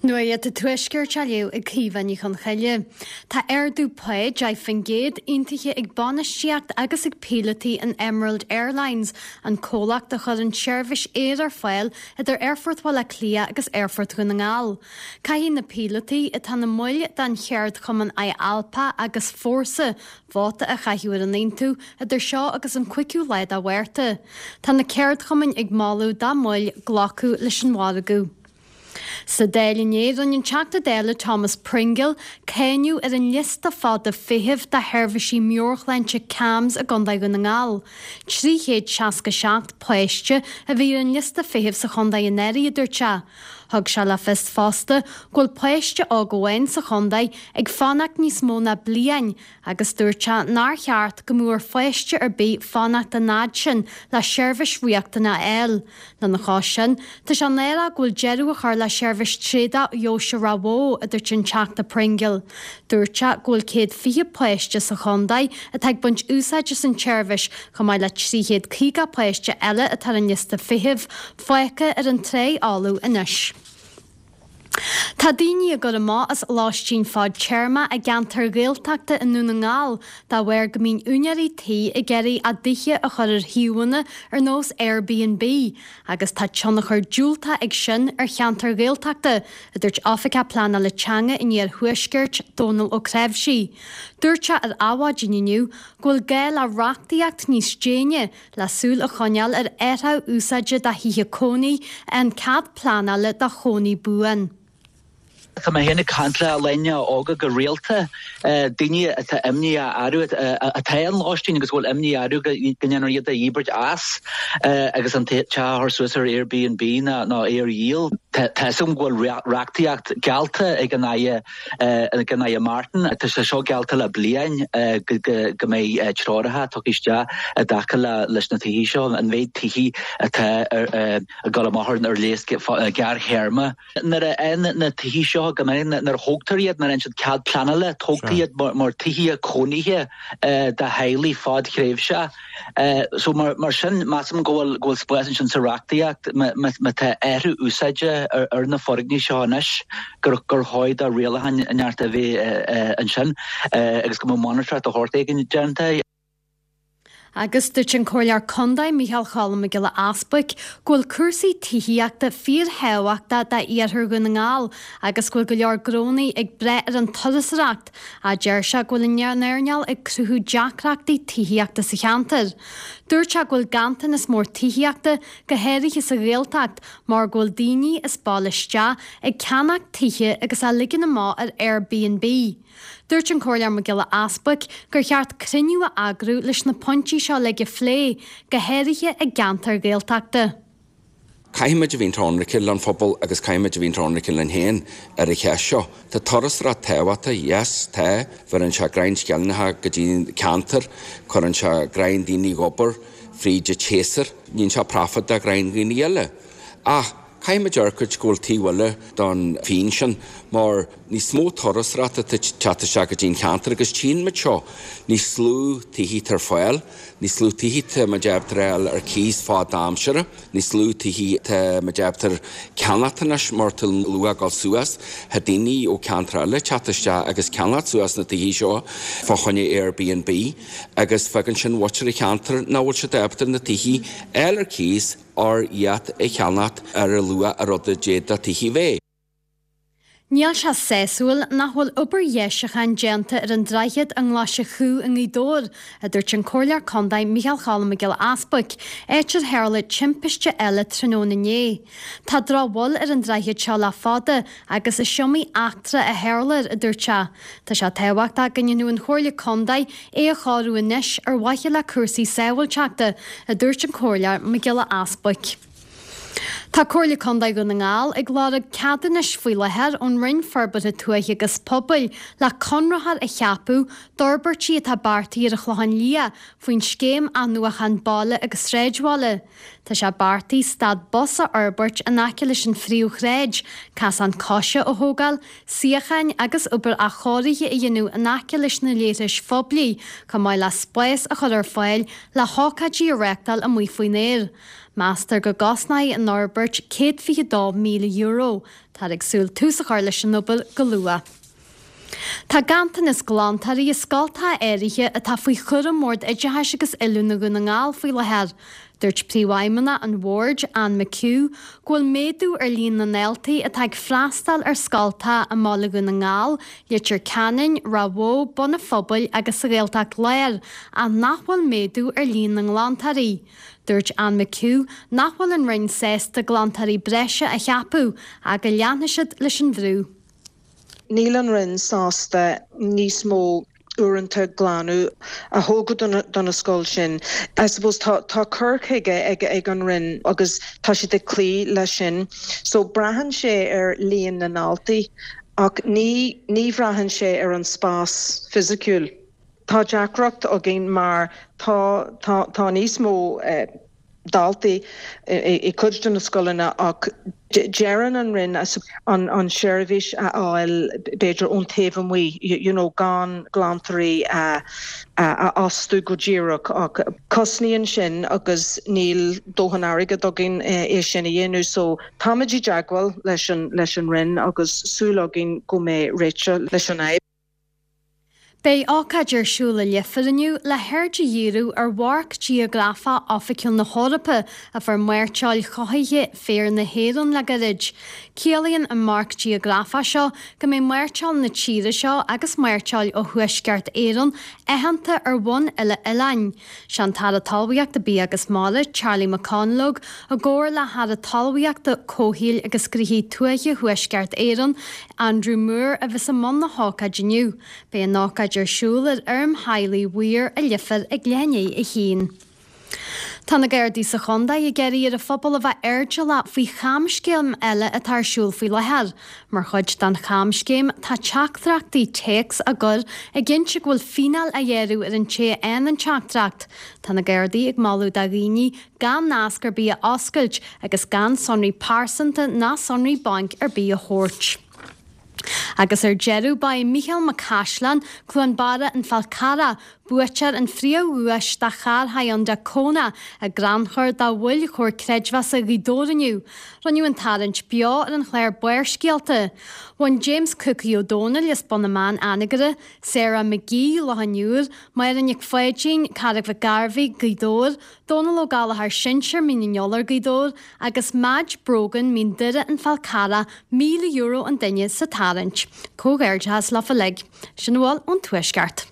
Nuacht an Tuaiscirt á léamh ag Caoimhe Ní Chonchoille. Tá ardú pá 10% aontaithe ag bainistíocht agus ag píolótaí an Emerald Airlines, an comhlacht a chuireann seirbhís aeir ar fáil idir Aerfort Bhaile Átha Cliath agus Aerfort Dhún na nGall. Caithfidh na píolótaí, atá ina mbaill den cheardchumann IALPA agus Fórsa, vóta a chaitheamh ar an aontú idir seo agus an 5ú lá de Mhárta. Tá na ceardchumainn ag moladh dá mbaill glacadh leis an mhargadh. Sa Dáil inné, rinne an Teachta Dála Thomas Pringle cáineadh ar an liosta fada feithimh do sheirbhísí meabhairshláinte CAMHS i gContae Dhún na nGall. 367 páiste a bhí ar an liosta feithimh sa chontae anuraidh, a dúirt sé. Thug sé le fios fosta go bhfuil páiste óg amháin sa chontae ag fanacht níos mó ná bliain agus dúirt sé nár cheart go mbeadh ar pháiste ar bith fanacht an fhad sin le seirbhís riachtanach a fháil. Lena chois sin, tá sé náireach go bhfuil deireadh á chur le seirbhís tréadach Dheoise Ráth Bhoth, a dúirt an Teachta Pringle. Dúirt sé go bhfuil 120 páiste sa chontae atá ag baint úsáid as an tseirbhís, chomh maith le 350 páiste eile atá ar an liosta feithimh, fágtha ar an trá fholamh anois. Tá daoine á gcur amach as lóistín fadtéarma i gceantair Ghaeltachta i nDún na nGall dá bharr go mbíonn úinéirí tí ag iarraidh a dtithe a chur ar shuíomhanna ar nós Airbnb agus tá tionchar diúltach ag sin ar cheantair Ghaeltachta, a dúirt Oifigeach Pleanála Teanga an Iarthuaiscirt, Dónal Ó Cnáimhsí. Dúirt sé ar Adhmhaidin inniu go bhfuil gá le reachtaíocht níos déine le súil a choinneáil ar athrú úsáide do thithe cónaí an cead pleanála do chónaí buan. Tá mé féin ag caint le daoine óga go rialta, daoine atá imní orthu, atá in lóistín agus go bhfuil imní orthu go ndéanfar iad a dhíbirt as agus an teach a chur suas ar Airbnb nó é a dhíol. Tá fhios agam go bhfuil reachtaíocht geallta ag an Aire Ag an Aire Martin, tá sé seo geallta le bliain go mbeidh treoracha tugtha isteach i dtaca leis na tithe seo, an mhéid tithe atá ag dul amach ar léas gearrthéarma. Nuair a fhaigheann na tithe seo, go minic nuair a thógtar iad, nuair a fhaigheann siad cead pleanála, tógtar iad mar tithe cónaithe do theaghlaigh fadthréimhseach. So mar sin, measaim go bhfuil go bhfuil spás ansin sa reachtaíocht má tá athrú úsáide ar na foirgnimh seo anois gur gur chóir do rialacháin neart a bheith ansin agus go mbeadh monatóireacht de shórt éigin déanta. Agus dúirt an Comhairleoir Contae Micheál Cholm Mac Giolla Easbuic go bhfuil cúrsaí tithíochta fíorthábhachtach d'iarthar Dhún na nGall agus go bhfuil go leor gnónnaí ag brath ar an turasóireacht Ach deir sé go bhfuil an earnáil ag cruthú deacrachtaí tithíochta sa cheantar. Dúirt sé go bhfuil ganntanas mór tithíochta, go háirithe sa Ghaeltacht, mar go bhfuil daoine as baile isteach ag ceannach tithe agus á ligean amach ar Airbnb. Dúirt an Comhairleoir Mac Giolla Easbuic gur cheart cruinniú a eagrú leis na pointí seo uilig a phlé, go háirithe i gceantair Ghaeltachta. Caithfimid a bhínt ionraice len phobal agus caithfimid a bhínt ionraice linn féin ar an cheist seo. Tá turasóireacht tábhachtach, yes, tá. Bheireann sé greim sceilneacha go dtí an ceantar, cuireann sé greim daoine ag obair fríd an tséasúr, níonn sé profit do ghreim dhaoine eile. Ach caithfimid amharc go bhfuil taobh eile don phingin sin mar níos mó turasóireachta atá ag teacht isteach go dtí an cheantar agus tchíonn muid seo, níos lú tithí atá ar fáil. Níos lú tithí tá muid ábalta a fháil ar cíos fad-aimsire, níos lú tithí tá muid ábalta ceannacht anois mar tá an luach ag dul suas. Tá daoine ó ceantar eile ag teacht isteach agus ceannacht suas na tithí seo fá choinne Airbnb agus fágann sin mhuintir an cheantair nach bhfuil siad ábalta na tithí a fháil ar cíos or iad a cheannacht ar an luach a rud a d'fhéadfadh tithí a bheith. Níl sé sásúil nach bhfuil obair dheisiúcháin déanta ar an droichead i nGlais an Chú i nGaoth Dobhair, a dúirt an Comhairleoir Contae Micheál Cholm Mac Giolla Easbuic, áit ar tharla timpiste eile tráthnóna inné. Tá drochbhail ar an droichead seo le fada agus is iomaí eachtra a tharla air, a dúirt sé. Tá sé tábhachtach go ndéanfadh an Chomhairle Contae é a chóiriú anois ar mhaithe le cúrsaí sábháilteachta, a dúirt an Comhairleoir Mac Giolla Easbuic. Tá Comhairle Contae Dhún na nGall ag lorg ceadúnais faoi láthair ón Roinn Forbartha Tuaithe agus Pobail le conraitheoir a cheapadh d'fhorbairtí atá beartaithe ar an Chlochán Liath faoin Scéim Athnuachan Baile agus Sráidbhaile. Tá sé beartaithe stad bus a fhorbairt in aice leis an phríomhshráid, casán coise a thógáil, suíocháin agus obair athchóirithe a dhéanamh in aice leis na leithris phoiblí, chomh maith le spás a chur ar fáil le hócáidí a reáchtáil amuigh faoin aer. Meastar go gcosnóidh an fhorbairt €122,000. Táthar ag súil tús a chur leis an obair go luath. Tá ganntanas glantóirí i scoltacha áirithe atá faoi chúram Bhord Oideachais agus Oiliúna Dhún na nGall faoi láthair. Dúirt Príomhfheidhmeannach an Bhoird, Anne McHugh, go bhfuil méadú ar líon na ndaltaí atá ag freastal ar scoltacha i mBaile Dhún na nGall, Leitir Ceanainn, Ráth Bhoth, Bun an Phobail agus sa Ghaeltacht Láir ach nach bhfuil méadú ar líon na nglantóirí. Dúirt Anne McHugh nach bhfuil an Roinn sásta glantóirí breise a cheapadh ach go leanfaidh siad leis an bhrú. Níl an Roinn sásta níos mó uaireanta glanadh a thógáil do na scoil sin. I suppose tá tá cur chuige ag ag an Roinn agus tá siad ag cloí leis sin. So braitheann sé ar líon na ndaltaí ach ní ní bhraitheann sé ar an spás fisiciúil. Tá deacracht againn mar tá tá tá níos mó daltaí i gcuid de na scoileanna ach deireann an Roinn an seirbhís a fháil b'fhéidir ón taobh amuigh, you know gan glantóirí a fhostú go díreach ach cosnaíonn sin agus níl dóthain airgead againn é sin a dhéanamh so táimid i dteagmháil leis an leis an Roinn agus súil againn go mbeidh réiteach leis an fhadhb. Beidh ócáid ar siúl i Leifear inniu le haird a dhíriú ar Mharc Geografach Oifigiúil na hEorpa a fuair mairteoil chothaithe féir na hÉireann le gairid. Ciallaíonn an marc geografach seo go mbeidh mairteoil na tíre seo agus mairteoil ó Thuaisceart Éireann aitheanta ar bhonn uile-oileáin. Sé an tAire Talmhaíochta, Bia agus Mara, Charlie McConalogue, i gcomhar le hAire Talmhaíochta, Comhshaoil agus Gnoithí Tuaithe Thuaisceart Éireann, Andrew Moore, a bheas i mbun na hócáide inniu. Beidh an ócáid ar siúl ar fheirm theaghlaigh Mhaoir i Leifear ag leath i ndiaidh a haon. Tá na Gardaí sa chontae ag iarraidh ar an phobal a bheith airdeallach faoi chamscéim eile atá ar siúl faoi láthair. Mar chuid den chamscéim, tá teachtaireachtaí téacs á gcur ag inse go bhfuil fíneáil á ghearradh ar an té a fhaigheann an teachtaireacht. Tá na Gardaí ag moladh do dhaoine gan nasc ar bith a oscailt agus gan sonraí pearsanta ná sonraí bainc ar bith a thabhairt. Agus ar deireadh, ba é Mícheál Mac Caisleáin, Cluain Barra, An Fál Carrach, buaiteoir an phríomhdhuais de charr Hyundai Kona i gcrannchur do bhaill Chomhar Creidmheasa Ghaoth Dobhair inniu. Rinneadh an tarraingt beo ar an chlár Barrscéalta. Bhain James Cookie Ó Dónaill as Bun na mBan, Anagaire, Sarah McGee, Loch an Iúir, Máire Nic Pháidín, Carraig Mhic Gairbheith, Gaoth Dobhair, Dónal Ó Gallchóir Sinsear, Mín an Iolair, Gaoth Dobhair, agus Madge Brogan, Mín Doire, An Fál Carrach, €1,000 an duine sa tarraingt. Comhghairdeachas leofa uilig. Sin a bhfuil ón Tuaisceart.